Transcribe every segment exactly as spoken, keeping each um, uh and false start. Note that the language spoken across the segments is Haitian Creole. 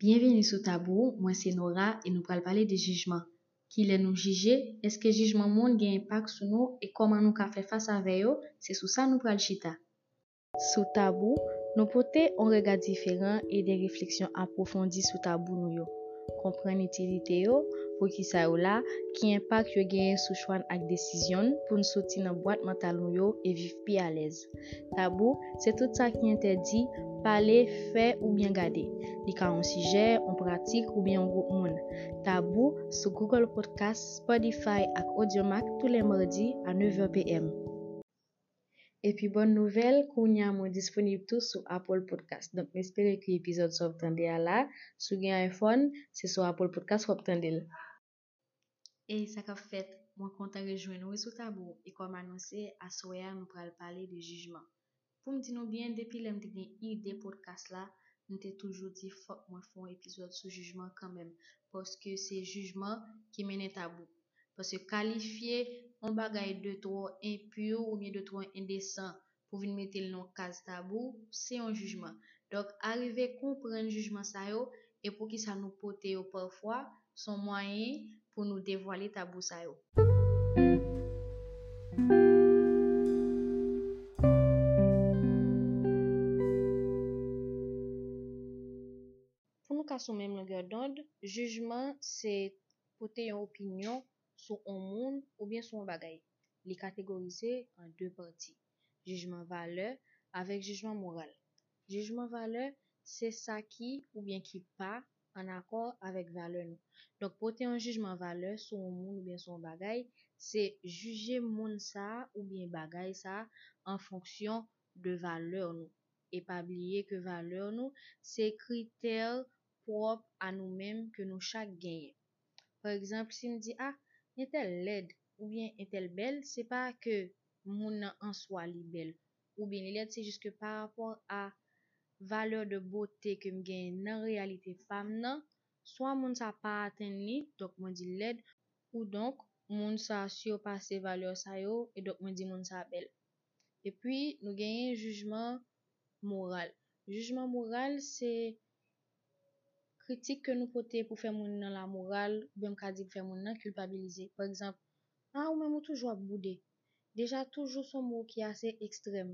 Byenvini sou Tabou, mwen se Nora e nou pral pale de jijman. Kilè nou jije? Èske jijman moun gen enpak sou nou e kòman nou ka fè fas avè yo? Se sou sa nou pral chita. Sou Tabou, nou pote yon rega diferan e de refleksyon apwofondi sou tabou nou yo. Konprann itilite yo, poukisa yo la, ki enpak yo genyen sou chwa n ak desizyon n pou n soti nan bwat mantal nou yo e viv pi alèz. Tabou, se tout sa ki entèdi pale, fè oubyen gade. Li ka yon sijè, yon pratik oubyen yon gwoup moun. Tabou sou Google Podcast, Spotify ak Audiomack tou lè madi a nèf è p m. Epi bòn nouvèl, kounye a mwen disponib tou sou Apple Podcast. Donk, m espere ke epizòd sa w ap tande a la, si w gen iPhone, se sou Apple Podcast w ap tande l. Ey, sa k ap fèt? Mwen kontan rejwenn ou sou Tabou e kòm anonse, aswè a nou pral pale de jijman. Pou m di nou byen, depi lè m te gen ide podcast la, m te toujou di fòk mwen fè yon epizòd sou jijman kanmenm, paske se jijman ki mennen Tabou. Paske kalifye yon bagay de twò enpi oubyen de twò endesan pou vin mete l nan yon kaz tabou, se yon jijman. Donk, arive konprann jijman sa yo e poukisa nou pote yo pafwa, se yon mwayen pou nou devwale tabou sa yo. Pou nou ka sou menm longè dond, jijman se pote yon opinyon sou yon moun oubyen sou yon bagay. Li kategorize an de pati, jijman valè avèk jijman moral. Jijman valè se sa ki oubyen ki pa ann akò avèk valè nou. Donk, pote yon jijman valè sou yon moun oubyen sou yon bagay, se jije moun sa a oubyen bagay sa a an fonksyon de valè nou. E pa bliye ke valè nou se kritè pwòp a nou menm ke nou chak genyen. Pa egzanp, si m di, a, entèl lèd oubyen entèl bèl, se pa ke moun nan an swa li bèl oubyen li lèd, se jis ke pa rapò a valè de bote ke m genyen nan reyalite pa m nan, swa moun sa pa atenn li, donk mwen di l lèd, ou donk moun sa sipase valè sa yo, e donk mwen di moun sa bèl. Epi, nou genyen jijman moral. Jijman moral, se kritik ke nou pote pou fè moun nan lamoral, oubyen m ka di pou fè moun nan kilpabilize. Pa egzanp, a, ou menm ou toujou ap boude. Deja, toujou se yon mo ki ase ekstrèm.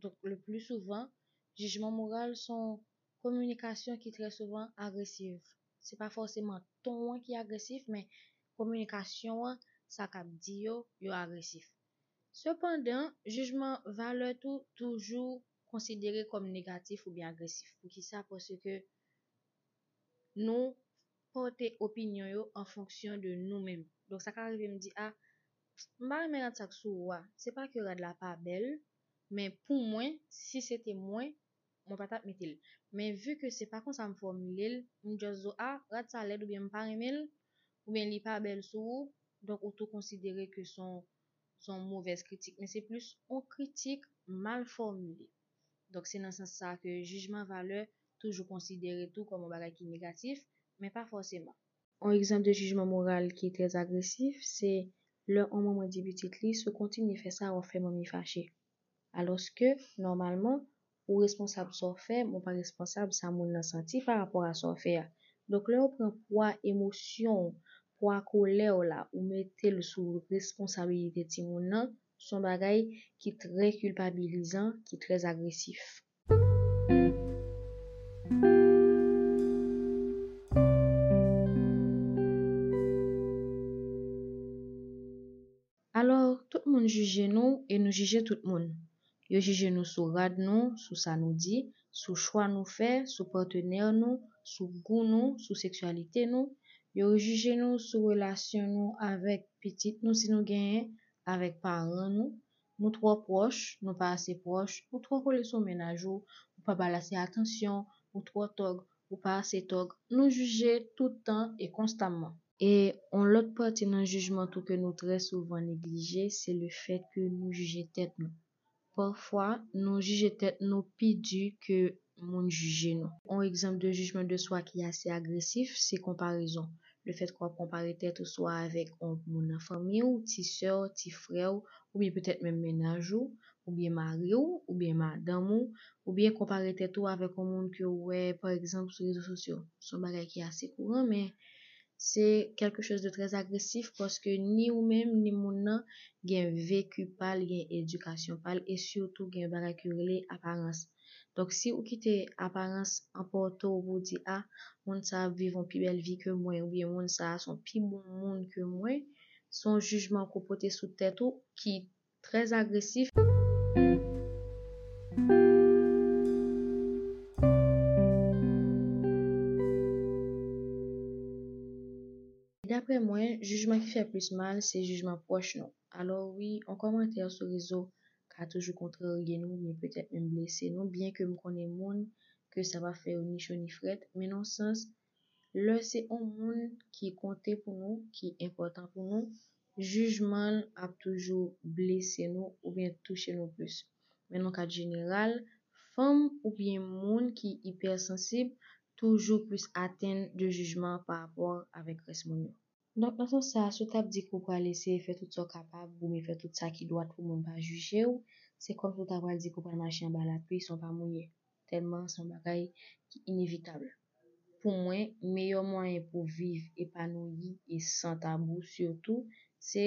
Donk, le pli souvan, jijman moral se yon kominikasyon ki trè souvan agresiv. Se pa fòseman ton an ki agresif, men kominikasyon an, sa k ap di yo, yo agresif. Sepandan, jijman valè tou toujou konsidere kòm negatif oubyen agresif. Poukisa? Paske nou pote opinyon yo an fonksyon de nou menm. Donk, sa ka rive m di, a, m pa renmen rad sa k sou ou a. Se pa ke rad la pa bèl, men pou mwen, si se te mwen, mwen pa t ap mete l. Men vi ke se pa konsa m fòmile l, m just di w, a, rad sa lèd oubyen m pa renmen l, oubyen li pa bèl sou ou, donk ou tou konsidere ke se yon, se yon movèz kritik. Men se plis yon kritik mal fòmile. Donk se nan sans sa ke jijman valè toujou konsidere tou kòm yon bagay ki negatif, men pa fòseman. Yon egzanp de jijman moral ki trè agresif, se lè yon manman di pitit li, si w kontinye fè sa, w ap fè manmi fache. Alòske, nòmalman, ou responsab sa w fè, men w pa responsab sa moun nan santi pa rapò a sa w fè a. Donk, lè w pran pwa emosyon w, pwa kolè w la, ou mete l sou responsabilite timoun nan, se yon bagay ki trè kilpabilizan, ki trè agresif. Alò, tout moun jije nou e nou jije tout moun. Yo jije nou sou rad nou, sou sa nou di, sou chwa nou fè, sou patnè nou, sou gou nou, sou seksyalite nou. Yo jije nou sou relasyon nou avèk pitit nou, si nou genyen, avèk paran nou. Nou twò pwòch, nou pa ase pwòch, ou twò kole sou mennaj ou, ou pa ba l ase atansyon, ou twò tòg, ou pa ase tòg. Nou jije tout tan e konstamman. E yon lòt pati nan jijman tou ke nou trè souvan neglije, se le fèt ke nou jije tèt nou. Pafwa, nou jije tèt nou pi di ke moun jije nou. Yon egzanp de jijman de swa ki ase agresif, se konparezon. Le fèt ke w ap konpare tèt ou swa avèk yon moun nan fanmi w, ti sè w, ti frè w, oubyen petèt menm mennaj ou, oubyen mari w, oubyen madanm ou, oubyen konpare tèt ou avèk yon moun ke w wè, pa egzanp, sou rezo sosyo. Se yon bagay ki ase kouran, men se quelque chose de très agressif paske ni ou menm, ni moun nan gen veki pa l, gen edikasyon pa l, e sitou gen yon bagay ki rele aparans. Donk, si ou kite aparans anpòte w pou w di, a, moun sa ap viv yon pi bèl vi ke mwen, oubyen moun sa se yon pi bon moun ke mwen, se yon jijman ke w pote sou tèt ou ki très agressif. Daprè mwen, jijman ki fè plis mal, se jijman pwòch nou. Alò wi, yon kòmantè sou rezo ka toujou kontrarye nou, oubyen petèt menm blese nou, byen ke m konnen moun ke sa pa fè yo ni cho ni frèt, men nan yon sans, lè se yon moun ki konte pou nou, ki enpòtan pou nou, jijman l ap toujou blese nou oubyen touche nou plis. Men nan kad jeneral, fanm oubyen moun ki ipèsansib toujou plis atenn de jijman pa rapò avèk rès moun yo. Donk, nan sans sa, si w t ap di ke w pral eseye fè tout sa w kapab, oubyen fè tout sa ki dwat pou moun pa jije w, se kòmsi w ta pral di ke w pral mache anba lapli san w pa mouye. Tèlman se yon bagay ki inevitab. Pou mwen, meyè mwayen pou viv epanouyi e san tabou sitou, se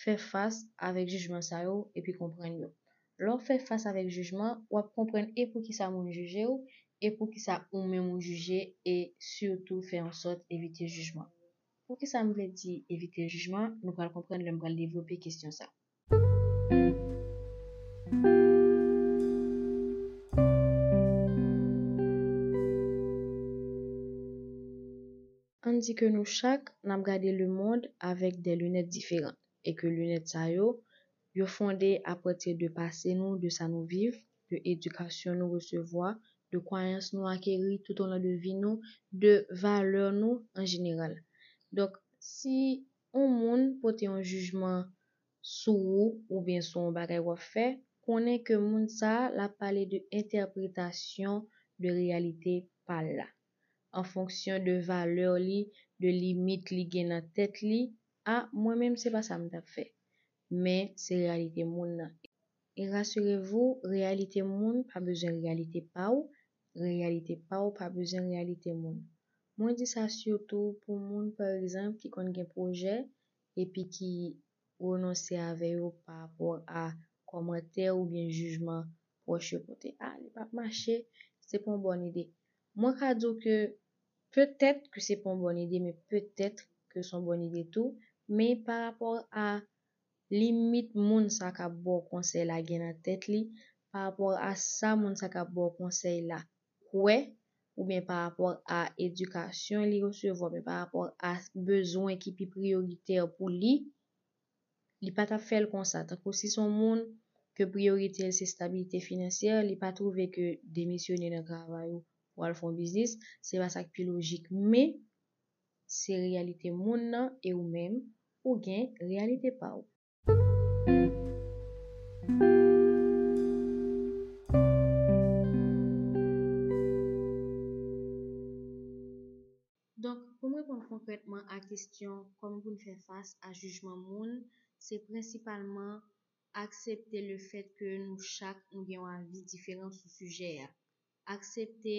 fè fas avèk jijman sa yo epi konprann yo. Lè w fè fas avèk jijman, w ap konprann e poukisa moun jije w, e poukisa ou menm ou jije, e sitou fè an sòt evite jijman. Poukisa m vle di evite jijman? Nou pral konprann lè m pral devlope kesyon sa. Ann di ke nou chak n ap gade lemonn avèk de linèt diferan e ke linèt sa yo, yo fonde apati de pase nou, de sa nou viv, de edikasyon nou resevwa, de kwayans nou akeri toutolon de vi nou, de valè nou an jeneral. Donk, si yon moun pote yon jijman sou ou oubyen sou yon bagay w ap fè, konnen ke moun sa a, l ap pale de entèpretasyon de reyalite pa l la, an fonksyon de valè li, de limit li gen nan tèt li. A, mwen menm, se pa sa m t ap fè. Men, se reyalite moun nan. E rasirevou, reyalite moun pa bezwen reyalite pa w, reyalite pa w pa bezwen reyalite moun. Mwen di sa sitou pou moun, pa egzanp, ki konn gen pwojè epi ki renonse avè yo pa rapò a kòmantè oubyen jijman pwòch yo pote. A, li p ap mache, se pa yon bòn ide. Mwen ka di w ke petèt ke se pa yon bòn ide, men petèt ke se yon bòn ide tou, men pa rapò a limit moun sa k ap ba w konsèy la gen nan tèt li, pa rapò a sa moun sa k ap ba w konsèy la kwè, oubyen pa rapò a edikasyon li resevwa, oubyen pa rapò a bezwen ki pi priyoritè pou li, li pa t ap fè l konsa. Tankou si se yon moun ke priyorite l se estabilite finansyè, li pa twouve ke demisyone nan travay ou pou al fè yon biznis, se pa sa k pi lojik. Men, se reyalite moun nan e ou menm, ou gen reyalite pa w. Donk, pou m reponn konkrètman a kesyon kòman pou n fè fas a jijman moun, se prensipalman aksepte lefèt ke nou chak nou gen yon avi diferan sou sijè a. Aksepte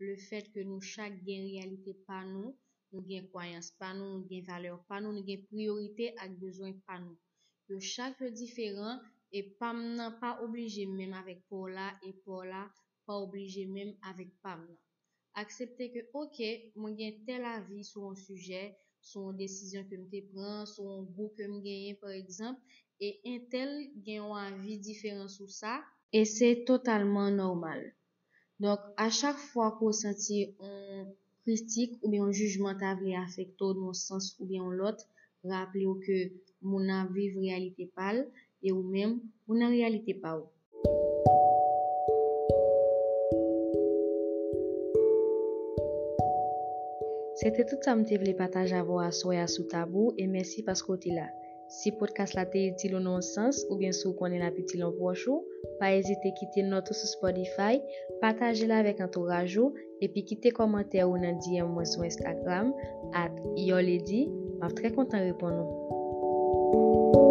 lefèt ke nou chak gen reyalite pa nou, nou gen kwayans pa nou, nou gen valè pa nou, nou gen priyorite ak bezwen pa nou. Yo chak yo diferan e pa m nan pa oblije menm avèk pa w la e pa w la pa oblije menm avèk pa m nan. Aksepte ke, oke, mwen gen tèl avi sou yon sijè, sou yon desizyon ke m te pran, sou yon gou ke m genyen, pa egzanp, e entèl gen yon avi diferan sou sa, e se totalman nòmal. Donk, a chak fwa ke w santi yon kritik oubyen yon jijman ta vle afekte w nan yon sans oubyen yon lòt, raple w ke moun nan ap viv reyalite pa l e ou menm, ou nan reyalite pa w. Se te tout sa m te vle pataje avè w aswè a sou tabou, e mèsi paske w te la. Si podcast la te itil ou nan yon sans, oubyen si w konnen l ap itil yon pwòch ou, pa ezite kite nòt ou sou Spotify, pataje l avèk antouraj ou, epi kite kòmantè ou nan D M mwen sou Instagram, at Your Lady, m ap trè kontan reponn ou.